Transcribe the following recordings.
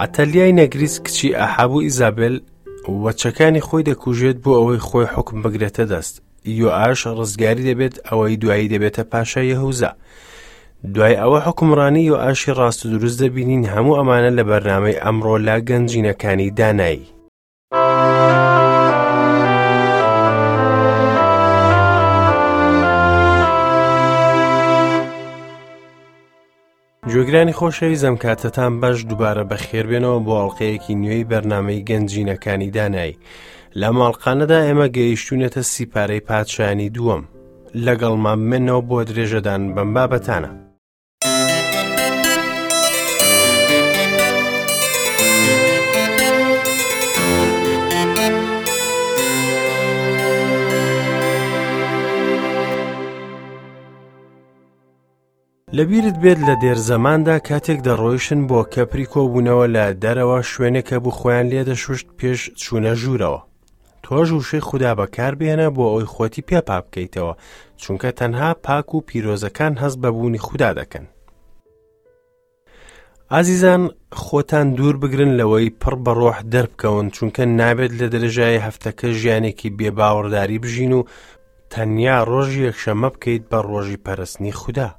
عەتەلیای نەگریس کچی ئەحاب و ئیزابێل وەچەکانی خۆی دەکوژێت بۆ ئەوەی خۆی حوکم بگرێتە دەست. یۆئاش ڕزگاری دەبێت ئەوەی دوایی دەبێتە پاشای یەهوزا. دوای ئەوە حوکمڕانی یۆئاشی ڕاست و دروست دەبینین هەموو ئەمانە لە بەرنامەی ئەمڕۆ لە گەنجینەکانی دانایی. گوێگرانی خۆشەویست ئەم کاتەتان باش دووبارە بەخێربێنەوە بۆ ئەڵلقەیەکی نوێی بەرنمەی گەنجینەکانی دانایی لە ماڵقانەدا ئێمە گەیشتونەتە سیپارەی پادشانی دووەم لەگەڵمان بمێنەوە بۆ درێژەدان بەم بابەتانە. لەبیرت بێت لە دێرزەماندا کاتێک دەڕۆیشتن بۆ کەپری کۆبوونەوە لە دەرەوە شوێنێک هەبوو خۆیان لێ دەشوشت پێش چوونە ژوورەوە. تۆش وشەی خودا بەکاربهێنە بۆ ئەوەی خۆتی پێ پاک بکەیتەوە، چونکە تەنها پاک و پیرۆزەکان هەست بە بوونی خودا دەکەن. ئازیزان خۆتان دوور بگرن لەوەی پڕ بە ڕۆح دەربکەون چونکە نابێت لە درێژایی هەفتەکە ژیانێکی بێ باوەڕداری بژین و تەنیا ڕۆژی یەکشەممە بکەیت بە ڕۆژی پەرستنی خودا.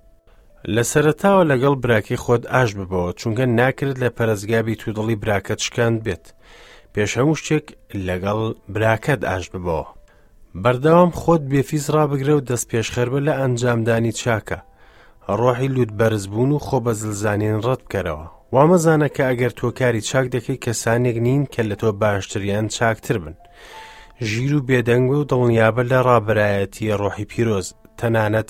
لە سەرەتاوە لەگەڵ براکەی خۆت ئاش ببەوە چونکە ناکرێت لە پەرستگا بیت و دڵی براکەت شکاند بێت. پێش هەموو شتێک لەگەڵ براکەت ئاش ببەوە. بەردەوام خۆت بێفیز ڕابگرە و دەست پێشخەربە لە ئەنجامدانی چاکە. ڕۆحی لوت بەرزبوون و خۆ بەزلزانین ڕەت بکەرەوە. وامەزانە کە ئەگەر تۆ کاری چاک دەکەی کەسانێک نین کە لە تۆ باشتر یان چاکتر بن. ژیر و بێدەنگ و دڵنیابە لە ڕابەرایەتی ڕۆحی پیرۆز، تەنانەت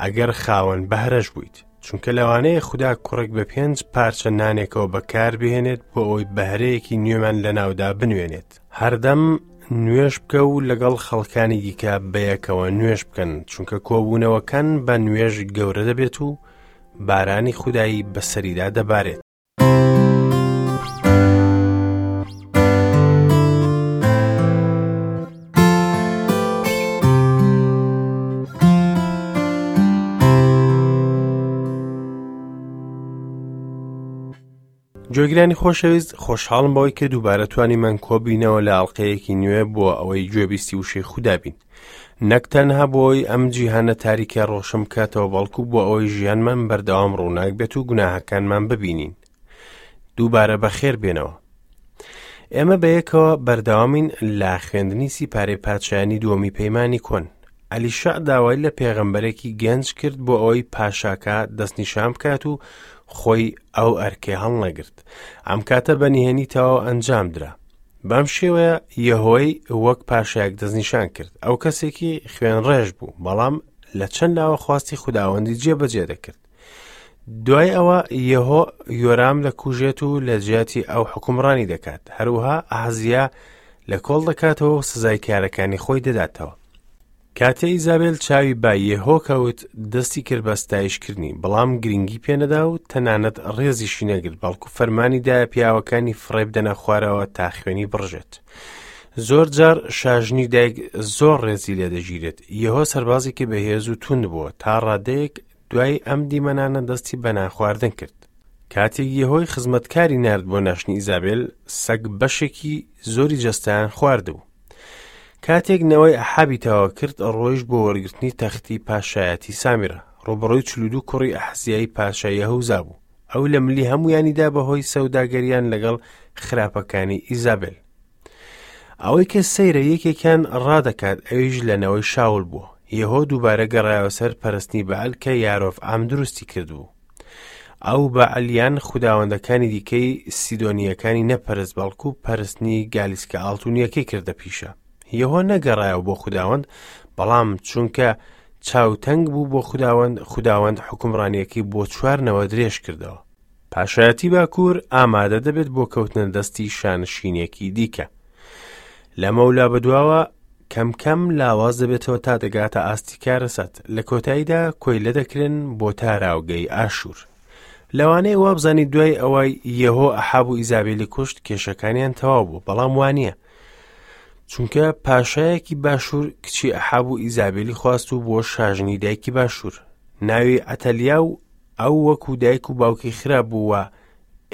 ئەگەر خاوەن بەهرەش بوویت. چونکە لەوانەیە خودا کوڕێک بە پێنج پارچە نانێکەوە بەکاربهێنێت بۆ ئەوەی بەهرەیەکی نوێمان لەناودا بنوێنێت. هەردەم نوێژ بکە و لەگەڵ خەڵکانی دیکە بەیەکەوە نوێژ بکەن چونکە کۆبوونەوەکان بە نوێژ گەورە دەبێت و بارانی خودایی بەسەریدا دەبارێت. گوێگرانی خۆشەویست خۆشحاڵم بەوەی کە دووبارە توانیمان کۆبینەوە لە ئەڵلقەیەکی نوێ بۆ ئەوەی گوێبیستی وشەی خودا بین نەک تەنها بۆی ئەم جیهانە تاریکە ڕۆشن بکاتەوە بەڵکو بۆ ئەوەی ژیانمان بەردەوام ڕووناک بێت و گوناهەکانمان ببینین دووبارە بەخێر بێنەوە ئێمە بەیەکەوە بەردەوامین لە خوێندنی سیپارەی پادشایانی دووەمی پەیمانی کۆن ئەلیشەع داوای لە پێغەمبەرێکی گەنج کرد بۆ ئەوەی پاشاکە دەستنیشان بکات و خۆی ئەو ئەرکەی هەڵنەگرت. ئەم کاتە بە نهێنی تەواو ئەنجام درا. بەم شێوەیە یەهۆی وەک پاشایەک دەستنیشان کرد. ئەو کەسێکی خوێنڕێژ بوو، بەڵام لە چەند لاوە خواستی خوداوەندی جێبەجێ دەکرد. دوای ئەوە یەهۆ یۆرام دەکوژێت و لە جیاتی ئەو حکومڕانی دەکات. هەروەها ئەحزیا لە کۆڵ دەکاتەوە و سزای کارەکانی خۆی دەداتەوە. کاتێ ئیزابێل چاوی بە یێهۆ کەوت، دەستی کرد بە ستایشکردنی، بەڵام گرنگی پێنەدا و تەنانەت ڕێزیشی نەگرت، بەڵکو فەرمانی دایە پیاوەکانی فڕێبدەنە خوارەوە تا خوێنی بڕژێت. زۆر جار شاژنی دایک زۆر ڕێزی لێدەگیرێت. یێهۆ سەربازێکی بەهێز و توند بووە، تا ڕادەیەک دوای ئەم دیمەنانە دەستی بە نانخواردن کرد. کاتێک یێهۆی خزمەتکاری نارد بۆ ناشتنی ئیزابێل، سەگ بەشێکی زۆری جەستەیان خواردبوو. کاتێک نەوەی ئەحابی تەواو کرد، ڕۆیشت بۆ وەرگرتنی تەختی پاشایەتی سامیرە. ڕووبەڕووی 42 کوڕی ئەحزیای پاشای یەهوزا بوو. ئەو لە ملی هەموویانیدا بەهۆی سەوداگەریان لەگەڵ خراپەکانی ئیزابێل. ئەوەی کە سەیرە یەکێکیان ڕادەکات ئەویش لە نەوەی شاول بووە. یەهۆ دووبارە گەڕایەوە سەر پەرستنی بەعل کە یارۆڤعام دروستی کردبوو. ئەو بەعل یان خوداوەندەکانی دیکەی سیدۆنییەکانی نەپەرست بەڵکو پەرستنی گالیسکە ئاڵتونیەکەی کردە پیشە. یەهۆ نەگەڕایەوە بۆ خوداوەند بەڵام چونکە چاوتەنگ بوو بۆ خوداوەند خوداوەند حوکمڕانیەکەی بۆ چوار نەوە درێژ کردەوە. پاشایەتی باکوور ئامادە دەبێت بۆ کەوتنە دەستی شانشینێکی دیکە. لەمەولا بەدواوە کەم کەم لاواز دەبێتەوە تا دەگاتە ئاستی کارەسات لە کۆتاییدا کۆیلە دەکرێن بۆ تاراوگەی ئاشوور. لەوانەیە وابزانی دوای ئەوەی یەهۆ ئەحاب و ئیزابێلی کوشت کێشەکانیان تەواو بوو بەڵام وانە چونکە پاشایەکی باشوور کچی ئەحاب و ئیزابێلی خواست و بۆ شاژنی دایکی باشوور ناوی ئەتەلیا و ئەو وەکو دایک و باوکی خراپ بوو و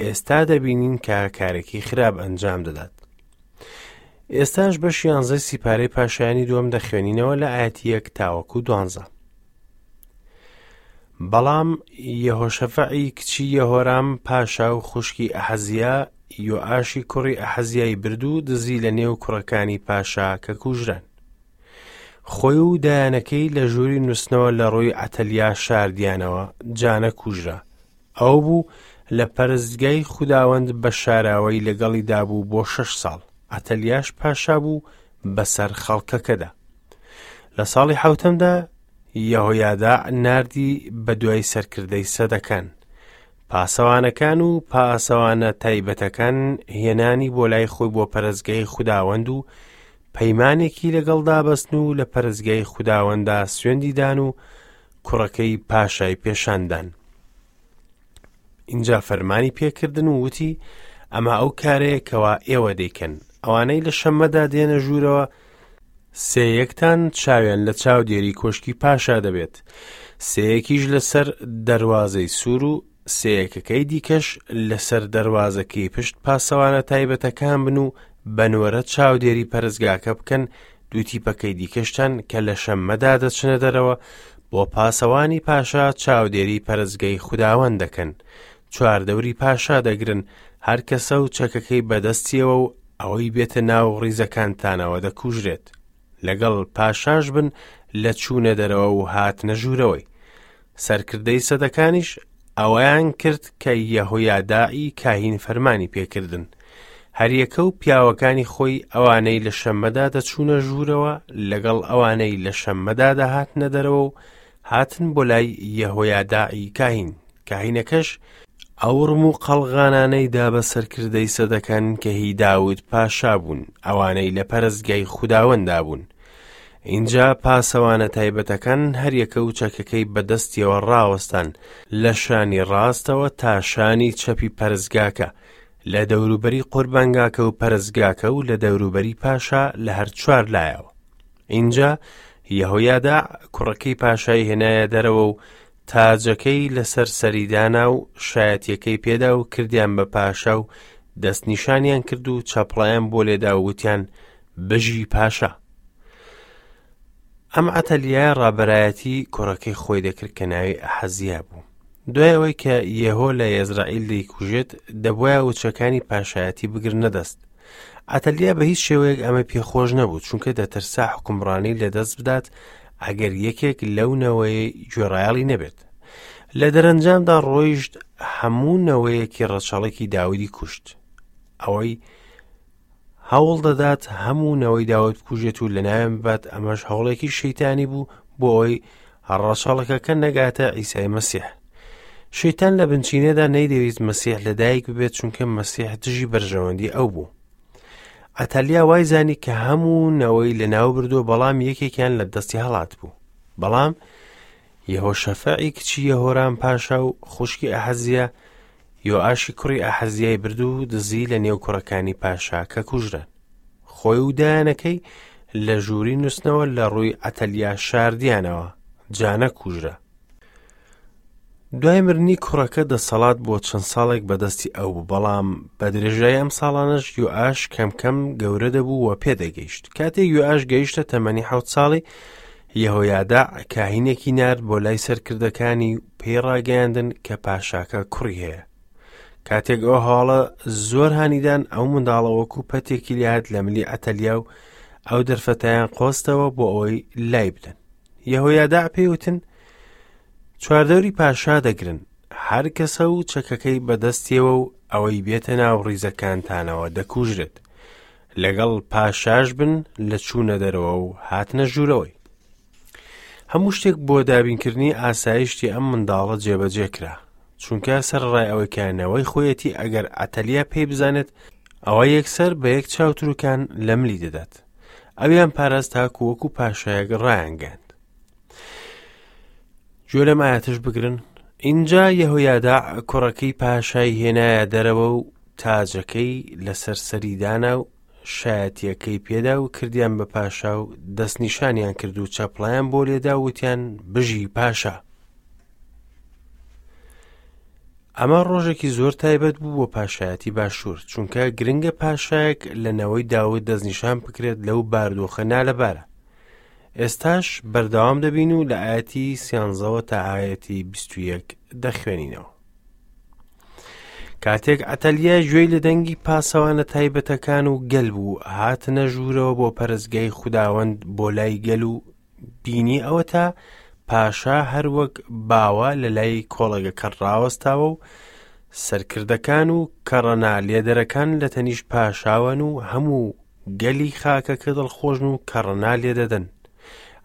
ئێستا دەبینین کە کارێکی خراپ ئەنجام دەدات. ئێستاش بەشی یانزەی سیپارەی پاشایانی دووەم دەخوێنینەوە لە ئایەتی یەک تاوەکو دوانزە. بەڵام یەهۆشەفەعی کچی یەهۆرام پاشا و خوشکی ئەحەزیا یۆئاشی کوڕی ئەحەزیای برد و دزی لە نێو کوڕەکانی پاشا کە کوژران. خۆی و دایانەکەی لە ژووری نووسنەوە لە ڕووی عەتەلیا شاردیانەوە، جا نەکوژرا. ئەو بوو لە پەرستگای خوداوەند بە شاراوەی لەگەڵیدا بوو بۆ شەش ساڵ. عەتەلیاش پاشا بوو بەسەر خەڵکەکەدا. لە ساڵی حەوتەمدا یەهۆیاداع ناردی بە دوای سەرکردەی سەدەکان، پاسەوانەکان و پاسەوانە تایبەتەکان هێنانی بۆ لای خۆی بۆ پەرستگای خوداوەند و پەیمانێکی لەگەڵدا بەستن و لە پەرستگای خوداوەندا سوێندی دان و کوڕەکەی پاشای پێشاندان. ئینجا فەرمانی پێکردن و وتی ئەمە ئەو کارەیە کەوا ئێوە دەیکەن ئەوانەی لە شەممەدا دێنە ژوورەوە سێیەکتان چاویان لە چاودێری کۆشکی پاشا دەبێت سێیەکیش لەسەر دەروازەی سوور و سێیەکەکەی دیکەش لەسەر دەروازەکەی پشت پاسەوانە تایبەتەکان بن و بە نۆرە چاودێری پەرستگاکە بکەن دوو تیپەکەی دیکەشتان کە لە شەممەدا دەچنە دەرەوە بۆ پاسەوانی پاشا چاودێری پەرستگەی خوداوەند دەکەن چواردەوری پاشا دەگرن هەر کەسە و چەکەکەی بەدەستیەوە و ئەوەی بێتە ناو ڕیزەکانتانەوە دەکوژرێت لەگەڵ پاشاش بن لە چوونە دەرەوە و هاتنە ژوورەوەی سەرکردەی سەدەکانیش ئەوەیان کرد کە یەهۆیاداعی کاهین فەرمانی پێکردن. هەریەکە و پیاوەکانی خۆی ئەوانەی لە شەممەدا دەچوونە ژوورەوە لەگەڵ ئەوانەی لە شەممەدا دەهاتنە دەرەوە و هاتن بۆ لای یەهۆیاداعی کاهین. کاهینەکەش ئەو ڕم و قەڵغانانەی دا بە سەرکردەی سەدەکان کە هی داود پاشا بوون، ئەوانەی لە پەرستگای خوداوەندا بوون. ئینجا پاسەوانە تایبەتەکان هەریەکە و چەکەکەی بەدەستیەوە ڕاوەستان لە شانی ڕاستەوە تا شانی چەپی پەرستگاکە، لە دەوروبەری قوربانگاکە و پەرستگاکە و لە دەوروبەری پاشا لە هەر چوار لایەوە. ئینجا یەهۆیاداع کوڕەکەی پاشای هێنایە دەرەوە و تاجەکەی لەسەر سەری دانا و شایەتیەکەی پێدا و کردیان بە پاشا و دەستنیشانیان کرد و چەپڵەیان بۆ لێدا و وتیان بژی پاشا. ئەم عەتەلیایە ڕابەرایەتی کوڕەکەی خۆی دەکرد کە ناوی ئەحەزیا بوو. دوای ئەوەی کە یێهۆ لە یەزرائیل دەیکوژێت، دەبوایە وچەکانی پاشایەتی بگرنە دەست. عەتەلیا بە هیچ شێوەیەک ئەمە پێخۆش نەبوو، چونکە دەترسا حوکمڕانی لەدەست بدات ئەگەر یەکێک لەو نەوەیەی گوێڕایەڵی نەبێت. لە دەرەنجامدا ڕۆیشت هەموو نەوەیەکی ڕەچەڵەکی داودی کوشت. ئەوەی هەوڵ دەدات هەموو نەوەی داود بکوژێت و لەناویان ببات، ئەمەش هەوڵێکی شەیتانی بوو بۆ ئەوەی ڕەچەڵەکەکە نەگاتە عیسای مەسیح. شەیتان لە بنچینەدا نەیدەویست مەسیح لەدایک ببێت چونکە مەسیح دژی بەرژەوەندی ئەو بوو. عەتەلیا وای زانی کە هەموو نەوەی لەناو بردووە بەڵام یەکێکیان لە دەستی هەڵات بوو. بەڵام یەهۆشەفەعی کچی یەهۆرام پاشا و خوشکی ئەحەزیا یۆئاشی کوڕی ئەحەزیای برد و دزی لە نێو کوڕەکانی پاشا کە کوژران. خۆی و دایانەکەی لە ژووری نووسنەوە لە ڕووی عەتەلیا شاردیانەوە، جا نەکوژرا. دوای مردنی کوڕەکە دەسەڵات بۆ چەند ساڵێک بەدەستی ئەو بوو، بەڵام بە درێژایی ئەم ساڵانەش یۆئاش کەم کەم گەورە دەبوو و پێدەگەیشت. کاتێک یۆئاش گەیشتە تەمەنی حەوت ساڵی، یەهۆیاداع کاهینێکی نارد بۆ لای سەرکردەکانی و پێی ڕاگەیاندن کە پاشاکە کوڕی هەیە. کاتێک ئەو هەواڵە زۆر هانیدان ئەو منداڵە وەکو پەتێکی لێهات لە ملی عەتەلیا و ئەو دەرفەتەیان قۆستەوە بۆ ئەوەی لای بدەن. یەهۆیاداع پێی وتن چواردەوری پاشا دەگرن، هەر کەسە و چەکەکەی بەدەستیەوە و ئەوەی بێتە ناو ڕیزەکانتانەوە دەکوژرێت. لەگەڵ پاشاش بن لە چوونە دەرەوە و هاتنە ژوورەوەی. هەموو شتێک بۆ دابینکردنی ئاسایشتی ئەم منداڵە جێبەجێ کرا، چونکە سەرەڕای ئەوەی کە نەوەی خۆیەتی ئەگەر عەتەلیا پێی بزانێت ئەوە یەکسەر بە یەک چاوتروکان لە ملی دەدات. ئەویان پاراست تاکو وەکو پاشایەک ڕایانگەیاند. گوێ لەم ئاەتش بگرن ئینجا یەهۆیاداع کوڕەکەی پاشای هێنایە دەرەوە و تاجەکەی لەسەر سەری دانا و شایەتیەکەی پێدا و کردیان بە پاشا و دەستنیشانیان کرد و چەپڵیان بۆ لێدا و وتیان بژی پاشا. ئەمە ڕۆژێکی زۆر تایبەت بوو بۆ پاشایەتی باشوور، چونکە گرنگە پاشایەک لە نەوەی داود دەستنیشان بکرێت لەو باردۆخە نالەبارە. ئێستاش بەردەوام دەبین و لە ئاەتی سیانزەوە تا ئاەتی 21 دەخوێنینەوە. کاتێک عەتەلیا گوێی لە دەنگی پاسەوانە تایبەتەکان و گەل بوو، هاتنە ژوورەوە بۆ پەرستگای خوداوەند بۆ لای گەل و بینی ئەوەتا پاشا هەروەک باوە لە لای کۆڵەگەکە ڕاوەستاوە و سەرکردەکان و کەڕەنا لێدەرەکان لە تەنیشت پاشاوەن و هەموو گەلی خاکەکە دڵخۆشن و کەڕەنا لێدەدەن.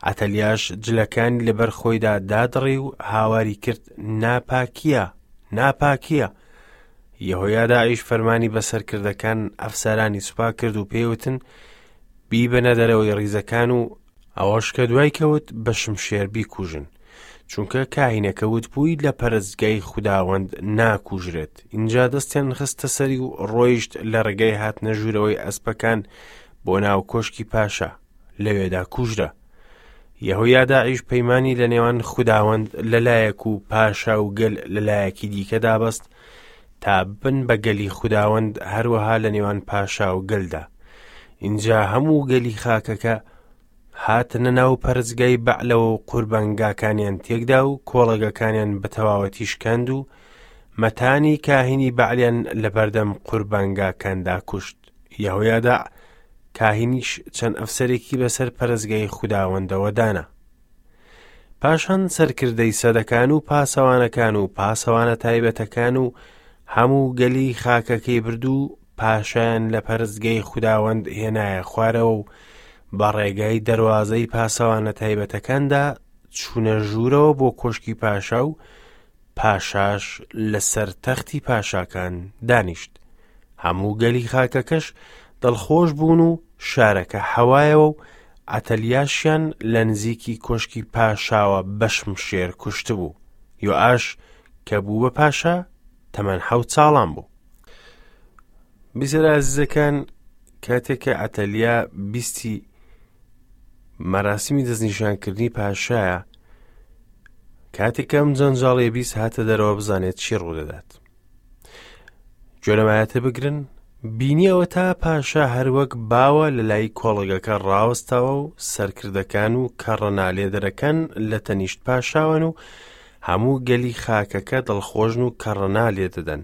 عەتەلیاش جلەکانی لەبەر خۆیدا دادڕی و هاواری کرد ناپاکیە ناپاکیە یەهۆیاداعیش فەرمانی بە سەرکردەکان ئەفسەرانی سوپا کرد و پێیوتن بیبەنە دەرەوەی ڕیزەکان و ئەوەش کە دوای کەوت بە شمشێر بیکوژن چونکە کاهینەکە وتبووی لە پەرستگای خوداوەند ناکوژرێت ئینجا دەستیان خستە سەری و ڕۆیشت لە ڕێگای هاتنە ژوورەوەی ئەسپەکان بۆ ناو کۆشکی پاشا لەوێدا کوژرا. یەهۆیاداعیش پەیمانی لە نێوان خوداوەند لەلایەک و پاشا و گەل لەلایەکی دیکەدا بەست تا بن بە گەلی خوداوەند هەروەها لە نێوان پاشا و گەلدا. ئینجا هەموو گەلی خاکەکە هاتنە ناو پەرستگای بەعلەوە و قوربانگاکانیان تێکدا و کۆڵەگەکانیان بە تەواوەتی شکاند و مەتانی کاهینی بەعلیان لەبەردەم قوربانگاکاندا کوشت. یەهۆیاداع کاهینیش چەند ئەفسەرێکی بەسەر پەرستگای خوداوەندەوە دانا. پاشان سەرکردەی سەدەکان و پاسەوانەکان و پاسەوانە تایبەتەکان و هەموو گەلی خاکەکەی برد و پاشایان لە پەرستگای خوداوەند هێنایە خوارەوە و بە ڕێگای دەروازەی پاسەوانە تایبەتەکاندا چوونە ژوورەوە بۆ کۆشکی پاشا و پاشاش لەسەر تەختی پاشاکان دانیشت. هەموو گەلی خاکەکەش دڵخۆش بوون و شارەکە حەوایەوە و عەتەلیاشیان لە نزیکی کۆشکی پاشاوە بە شمشێر کوشتبوو. یۆئاش کە بوو بە پاشا تەمەن حەوت ساڵان بوو. بیسەرە ئازیزەکان کاتێک کە عەتەلیا بیستی مەراسیمی دەستنیشانکردنی پاشایە کاتێک ئەم جەنجاڵیە بیست هاتە دەرەوە بزانێت چی ڕوودەدات گوێ بگرن بینیەوە تا پاشا هەروەک باوە لە لای کۆڵگەکە ڕاوەستاوە و سەرکردەکان و کەڕەنالێدەرەکان لە تەنیشت پاشاوەن و هەموو گەلی خاکەکە دڵخۆشن و کەڕەنا لێدەدەن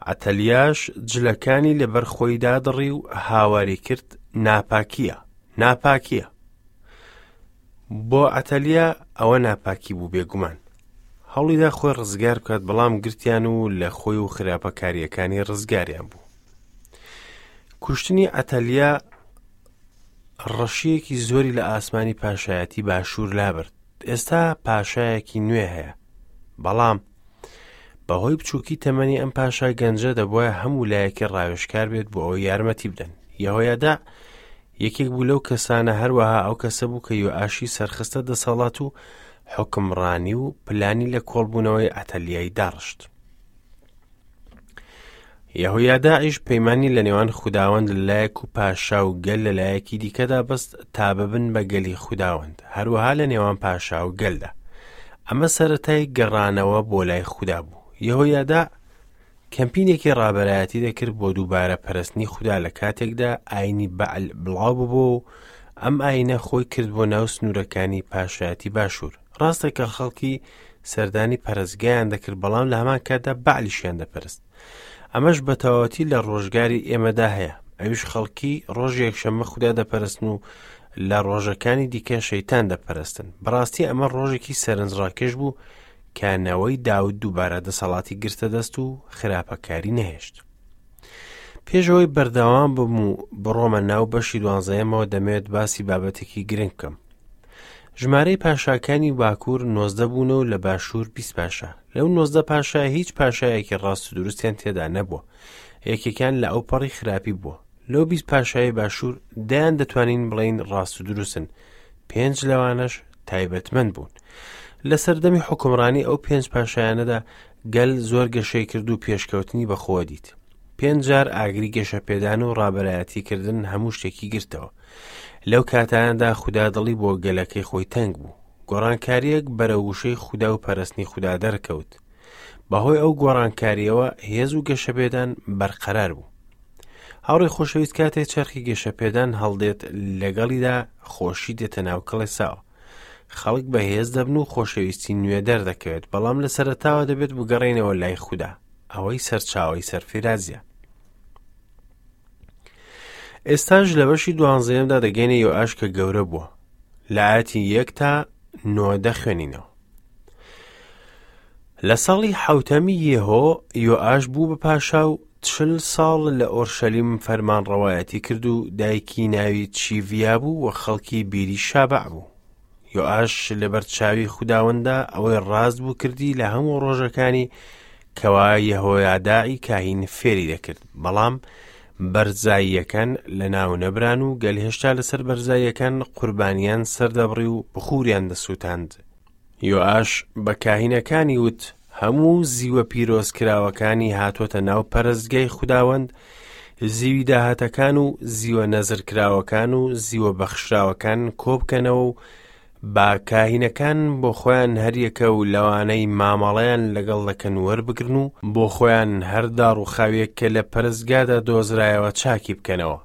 عەتەلیاش جلەکانی لەبەر خۆی دادڕی و هاواری کرد ناپاکیە ناپاکیە بۆ عەتەلیا ئەوە ناپاکی بوو بێگومان هەوڵیدا خۆی ڕزگار بکات بەڵام گرتیان و لە خۆی و خراپەکاریەکانی ڕزگاریان بوو کوشتنی عەتەلیا ڕەشیەکی زۆری لە ئاسمانی پاشایەتی باشوور لابرد ئێستا پاشایەکی نوێ هەیە بەڵام بەهۆی بچووکی تەمەنی ئەم پاشا گەنجە دەبواە هەموو لایەکی ڕاوێژکار بێت بۆ ئەوەی یارمەتی بدەن یەهۆیادا یەکێک بوو لەو کەسانە هەروەها ئەو کەسە بوو کە یۆئاشی سەرخستە دەسەڵات و حوکمڕانی و پلانی لە کۆڵبوونەوەی عەتەلیای داڕشت. یەهۆیاداعیش پەیمانی لە نێوان خوداوەند لە لایەک و پاشا و گەل لە لایەکی دیکەدا بەست تا ببن بە گەلی خوداوەند هەروەها لە نێوان پاشا و گەلدا ئەمە سەرەتای گەڕانەوە بۆ لای خودا بوو یەهۆیادا کەمپینێکی ڕابەرایەتی دەکرد بۆ دووبارە پەرستنی خودا لە کاتێکدا ئاینی بەعل بڵاو ببوو و ئەم ئاینە خۆی کرد بۆ ناو سنوورەکانی پاشایەتی باشوور ڕاستە کە خەڵکی سەردانی پەرستگایان دەکرد بەڵام لە هەمان کاتدا بەعلیشیان دەپەرست ئەمەش بە تەواوەتی لە ڕۆژگاری ئێمەدا هەیە ئەویش خەڵکی ڕۆژ یەکشەممە خودا دەپەرستن و لە ڕۆژەکانی دیکە شەیتان دەپەرستن بەڕاستی ئەمە ڕۆژێکی سەرنجڕاکێش بوو کە نەوەی داود دووبارە دەسەڵاتی گرتە دەست و خراپەکاری نەهێشت. پێشەوەی بەردەوام بم و بڕۆمە ناو بەشی دوانزەیەمەوە دەمەوێت باسی بابەتێکی گرنگ بکەم. ژمارەی پاشاکانی باکوور نۆزدە بوون و لە باشوور 20 پاشا. لەو نۆزدە پاشا هیچ پاشایەکی ڕاست و دروستیان تێدا نەبووە. یەکێکیان لە ئەوپەڕی خراپی بووە. لەو 20 پاشای باشوور دەیان دەتوانین بڵێین ڕاست و دروستن. پێنج لەوانەش تایبەتمەند بوون. لە سەردەمی حوکمڕانی ئەو پێنج پاشایانەدا گەل زۆر گەشەی کرد و پێشکەوتنی بەخۆوە دیت. پێنج جار ئاگری گەشەپێدان و ڕابەرایەتیکردن هەموو شتێکی گرتەوە. لەو کاتانەدا خودا دڵی بۆ گەلەکەی خۆی تەنگ بوو. گۆڕانکارییەک بەرەو وشەی خودا و پەرستنی خودا دەرکەوت. بەهۆی ئەو گۆڕانکارییەوە هێز و گەشەپێدان بەرقەرار بوو. هاوڕێی خۆشەویست کاتێ چەرخی گەشەپێدان هەڵدێت لەگەڵیدا خۆشی دێتە ناو کڵێساوە. خەڵک بەهێز دەبن و خۆشەویستی نوێ دەردەکەوێت، بەڵام لە سەرەتاوە دەبێت بگەڕێینەوە لای خودا، ئەوەی سەرچاوەی سەرفیرازیە. ئێستاش لە بەشی دوانزەیەمدا دەگەینە یۆئاش کە گەورە بووە. لە ئاەتی یەک تا نۆ دەخوێنینەوە. لە ساڵی حەوتەمی یێهۆ یۆئاش بوو بە پاشا و چل ساڵ لە ئۆرشەلیم فەرمانڕەوایەتی کرد و دایکی ناوی چیڤیا بوو و خەڵکی بیری شابەع بوو. یۆئاش لەبەر چاوی خوداوەندا ئەوەی ڕاست بوو کردی لە هەموو ڕۆژەکانی کەوا یەهۆیاداعی کاهین فێری دەکرد، بەڵام بەرزاییەکان لەناو نەبران و گەل هێشتا لەسەر بەرزاییەکان قوربانیان سەردەبڕی و بخوریان دەسووتاند. یۆئاش بە کاهینەکانی وت، هەموو زیوە پیرۆزکراوەکانی هاتۆتە ناو پەرستگای خوداوەند، زیوی داهاتەکان و زیوە نەزرکراوەکان و زیوە بەخشراوەکان کۆبکەنەوە و با کاهینەکان بۆ خۆیان هەریەکە و لەوانەی مامەڵەیان لەگەڵ دەکەن وەربگرن و بۆ خۆیان هەر داڕووخاویەک کە لە پەرستگادا دۆزرایەوە چاکی بکەنەوە.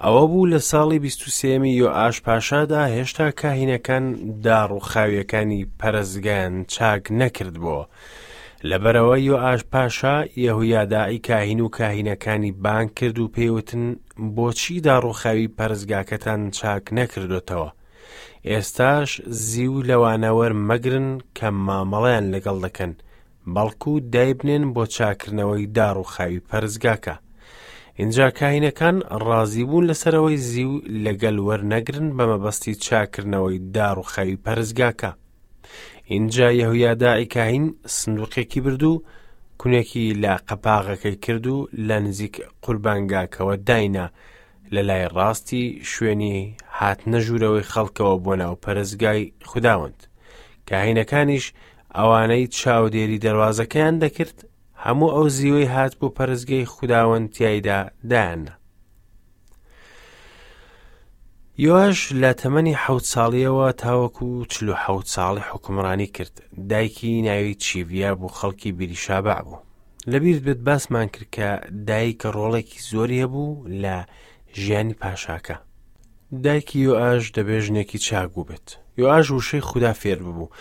ئەوە بوو لە ساڵی بیست و سێیەمی یۆئاش پاشادا هێشتا کاهینەکان داڕووخاویەکانی پەرستگایان چاک نەکردبۆوە. لەبەرئەوە یۆئاش پاشا یەهویاداعی کاهین و کاهینەکانی بانگ کرد و پێی وتن، بۆچی داڕووخاوی پەرستگاکەتان چاک نەکردۆتەوە؟ ئێستاش زیو لەوانە وەرمەگرن کە مامەڵەیان لەگەڵ دەکەن، بەڵکو دایبنێن بۆ چاکردنەوەی داڕووخاوی پەرستگاکە. ئینجا کاهینەکان ڕازی بوون لەسەر ئەوەی زیو لە گەل وەرنەگرن بە مەبەستی چاکردنەوەی داڕووخاوی پەرستگاکە. ئینجا یەهویاداعی کاهین سندوقێکی برد و کونێکی لە قەپاغەکەی کرد و لە نزیک قوربانگاکەوە داینا لە لای ڕاستی شوێنی هاتنە ژوورەوەی خەڵکەوە بۆ ناو پەرستگای خوداوەند. کاهینەکانیش ئەوانەی چاودێری دەروازەکەیان دەکرد هەموو ئەو زیوەی هات بۆ پەرستگەی خوداوەند تیایدا دایاننا. یۆاش لە تەمەنی حەوت ساڵیەوە تاوەکو 47 ساڵی حکومڕانی کرد دایکی ناوی چیڤیا بوو خەڵکی بیریشابع بوو لەبیرت بێت باسمان کرد کە دایک ڕۆڵێکی زۆری هەبوو لە ژیانی پاشاکە دایکی یۆئاش دەبێ ژنێکی چاک بووبێت. یۆئاش وشەی خودا فێر ببوو.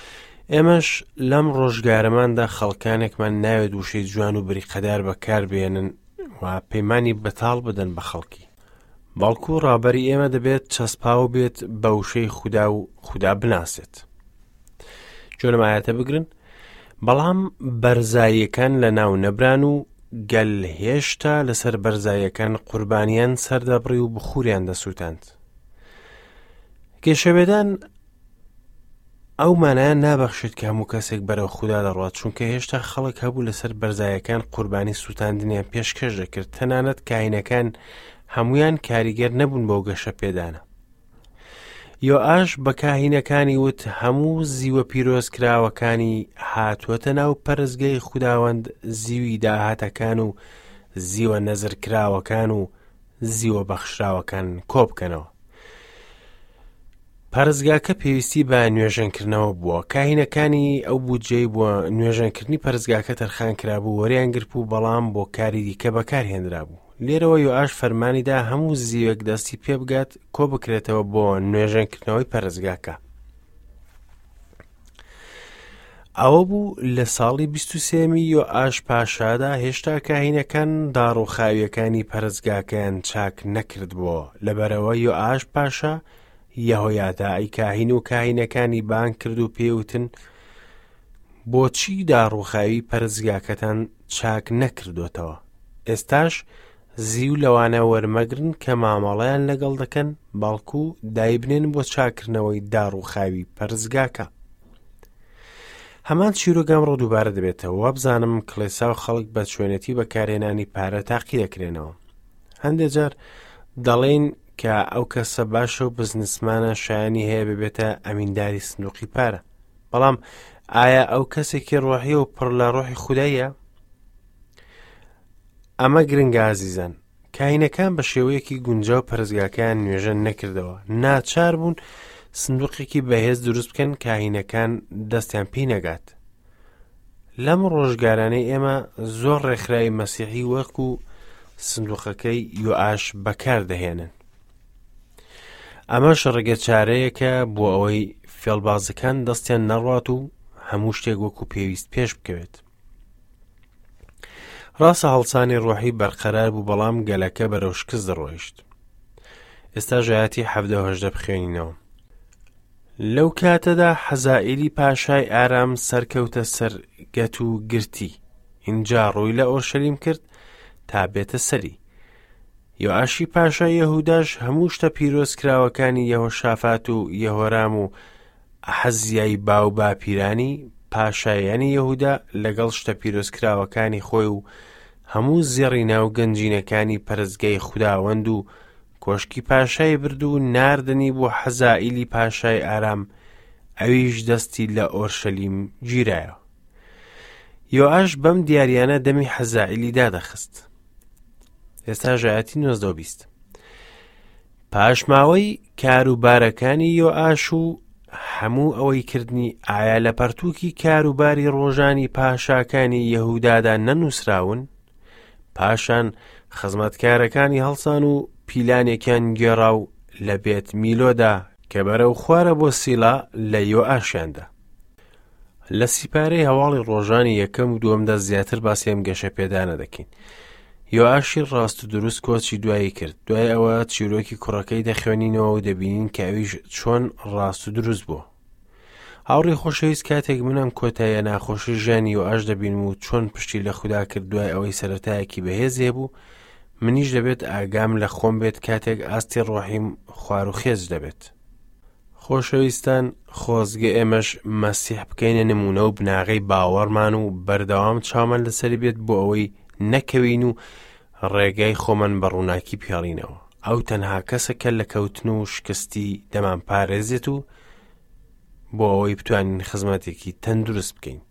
ئێمەش لەم ڕۆژگارەماندا خەڵکانێکمان ناوێت وشەی جوان و بریقەدار بەکار بێنن و پەیمانی بەتاڵ بدەن بە خەڵکی. بەڵکو ڕابەری ئێمە دەبێت چەسپاو بێت بە وشەی خودا و خودا بناسێت. گوێ لەم ئایەتە بگرن بەڵام بەرزاییەکان لە ناو نەبران و گەل هێشتا لەسەر بەرزاییەکان قوربانیان سەردەبڕی و بخوریان دەسووتاند گەشەپێدان ئەو مانایان نابەخشێت کە هەموو کەسێک بەرەو خودا دەڕوات چونکە هێشتا خەڵک هەبوو لەسەر بەرزایەکان قوربانی سووتاندنیان پێشکەش دەکرد تەنانەت کاینەکان هەمویان کاریگەر نەبوون بۆ گەشە پێدانە یۆئاش بە کاهینەکانی وت، هەموو زیوە پیرۆزکراوەکانی هاتووەتە ناو پەرستگەی خوداوەند، زیوی داهاتەکان و زیوە نەزرکراوەکان و زیوە بەخشراوەکان کۆبکەنەوە. پەرستگاکە پێویستی بە نوێژەنکردنەوە بووە. کاهینەکانی ئەو بودجەی بۆ نوێژەنکردنی پەرستگاکە تەرخان کرابوو وەریان گرتبوو، بەڵام بۆ کاری دیکە بەکارهێنرابوو. لێرەوە یۆئاش فەرمانی دا هەموو زیوێک دەستی پێ بگات کۆ بکرێتەوە بۆ نوێژەنکردنەوەی پەرستگاکە. ئەوە بوو لە ساڵی 23می یۆئاش پاشادا هێشتا کاهینەکان داڕووخاویەکانی پەرستگاکەیان چاک نەکردبووەوە لەبەرەوە یۆئاش پاشا یەهۆیاداعی کاهین و کاهینەکانی بانگ کرد و پێوتن بۆچی داڕووخاوی پەرستگاکەتان چاک نەکردۆتەوە؟ ئێستاش زیو لەوانە وەرمەگرن کە مامەڵەیان لەگەڵ دەکەن، بەڵکو دایبنێن بۆ چاککردنەوەی داڕووخاوی پەرستگاکە. هەمان چیرۆک ئەمڕۆ دووبارە دەبێتەوە، وابزانم کڵێسا و خەڵک بە چۆنێتی بەکارهێنانی پارە تاقی دەکرێنەوە. هەندێک جار دەڵێین کە ئەو کەسە باشە و بزنسمانە شایانی هەیە ببێتە ئەمینداری سندوقی پارە. بەڵام ئایا ئەو کەسێکی ڕۆحی و پڕ لە ڕۆحی خودایە؟ ئەمە گرنگە ئازیزان کاینەکان بە شێوەیەکی گونجاو پەرستگاکەیان نوێژەن نەکردەوە ناچار بوون سندوقێکی بەهێز دروست بکەن کاهینەکان دەستیان پێی نەگات. لەم ڕۆژگارانەی ئێمە زۆر ڕێکخراوی مەسیحی وەکو سندوقەکەی یۆئاش بەکار دەهێنن. ئەمەش ڕێگە چارەیەکە بۆ ئەوەی فێڵبازەکان دەستیان نەڕوات و هەموو شتێک وەکو پێویست پێش بکەوێت. ڕاستە هەڵسانی ڕۆحی بەرقەرار بوو بەڵام گەلەکە بەرەو شکست دەڕۆیشت. ئێستا ژایەتی حەڤدە و هەژدە بخوێنینەوە. لەو کاتەدا حەزائیلی پاشای ئارام سەرکەوتە سەر گەت و گرتی، ئینجا ڕووی لە ئۆرشەلیم کرد تا بێتە سەری. یۆئاشی پاشای یەهوداش هەموو شتە پیرۆزکراوەکانی یەهۆشافات و یەهۆرام و ئەحەزیای باوباپیرانی پاشایانی یەهودا لەگەڵ شتە پیرۆزکراوەکانی خۆی و هەموو زێڕی ناو گەنجینەکانی پەرستگای خوداوەند و کۆشکی پاشای برد و ناردنی بۆ حەزائیلی پاشای ئارام، ئەویش دەستی لە ئۆرشەلیم گیرایەوە. یۆئاش بەم دیاریانە دەمی حەزائیلی دادەخست. ئێستا ژایەتی نۆزدە و بیست. پاشماوەی کاروبارەکانی یۆئاش و هەموو ئەوەی کردنی ئایا لە پەرتووکی کاروباری ڕۆژانی پاشاکانی یەهودادا نەنووسراون؟ پاشان خزمەتکارەکانی هەڵسان و پیلانێکیان گێڕا و لە بێت میلۆدا کە بەرەو خوارە بۆ سیلا لە یۆئاشیاندا. لە سیپارەی هەواڵی ڕۆژانی یەکەم و دووەمدا زیاتر باسی ئەم گەشە پێدانە دەکەین. یۆئاشی ڕاست و دروست کۆچی دوایی کرد. دوای ئەوە چیرۆکی کوڕەکەی دەخوێنینەوە و دەبینین کە ئەویش چۆن ڕاست و دروست بووە. هاوڕێی خۆشەویست کاتێک من ئەم کۆتاییە ناخۆشی ژیانی یۆئاش دەبینم و چۆن پشتی لە خودا کرد دوای ئەوەی سەرەتایەکی بەهێزی هەبوو، منیش دەبێت ئاگام لە خۆم بێت کاتێک ئاستی ڕۆحیم خوار و خێچ دەبێت. خۆشەویستان خۆزگە ئێمەش مەسیح بکەینە نمونە و بناغەی باوەڕمان و بەردەوام چاومان لەسەری بێت بۆ ئەوەی نەکەوین و ڕێگای خۆمان بە ڕووناکی پێڵینەوە ئەو تەنها کەسە کە لە کەوتن و شکستی دەمان پارێزێت و بۆ ئەوەی بتوانین خزمەتێکی تەندروست بکەین.